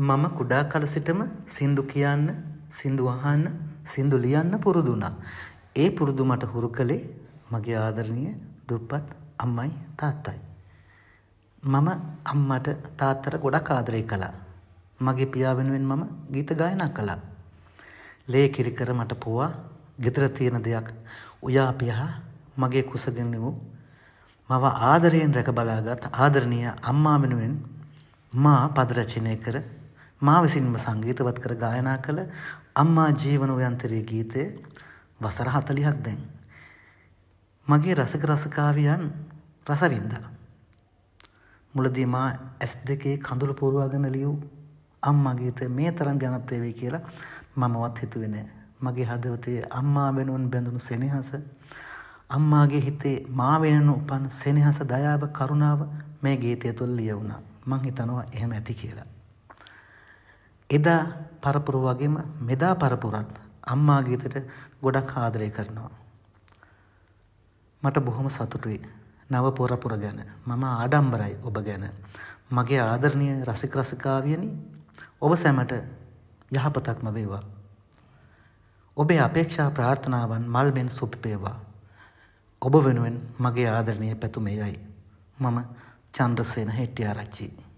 මම කුඩා කල සිටම සින්දු කියන්න, සින්දු අහන්න, සින්දු ලියන්න පුරුදු වුණා. ඒ පුරුදු මට හුරු කළේ මගේ ආදරණීය දුප්පත් අම්මයි තාත්තයි. මම අම්මට තාත්තට ගොඩක් ආදරය කළා. මගේ පියා වෙනුවෙන් මම ගීත ගායනා කළා. ලේ කිරි කර මට පොවා ගෙදර තියෙන දෙයක් උයා පියා මගේ කුසගින්න වූ මව ආදරයෙන් රැක බලාගත් ආදරණීය අම්මා වෙනුවෙන් මා පද රචනය කර මා විසින්ම සංගීතවත් කර ගායනා කළ අම්මා ජීවන උයන්තරී ගීතය වසර 40ක් දැන්. මගේ රසික රසිකාවියන් රස වින්දා. මුලදී මා ඇස් දෙකේ කඳුළු පුරවාගෙන ලියූ අම්මා ගීතය මේ තරම් ජනප්‍රිය වෙයි කියලා මමවත් හිතුවේ නෑ. මගේ හදවතේ අම්මා වෙනුවෙන් බැඳුණු සෙනෙහස, අම්මාගේ හිතේ මා වෙනුවෙන් උපන් සෙනෙහස, දයාව, කරුණාව මේ ගීතය තුළ ලියවුණා. මං හිතනවා එහෙම ඇති කියලා. එදා පරපුර වගේම මෙදා පරපුරත් අම්මා ගීතෙට ගොඩක් ආදරය කරනවා. මට බොහොම සතුටුයි නව පරපුර ගැන. මම ආඩම්බරයි ඔබ ගැන. මගේ ආදරණීය රසික රසිකාවියනි, ඔබ සැමට යහපතක්ම වේවා. ඔබේ අපේක්ෂා ප්‍රාර්ථනාවන් මල් මෙන් සුපිපේවා. ඔබ වෙනුවෙන් මගේ ආදරණීය පැතුම එයයි. මම චන්ද්‍රසේන හෙට්ටිආරච්චි.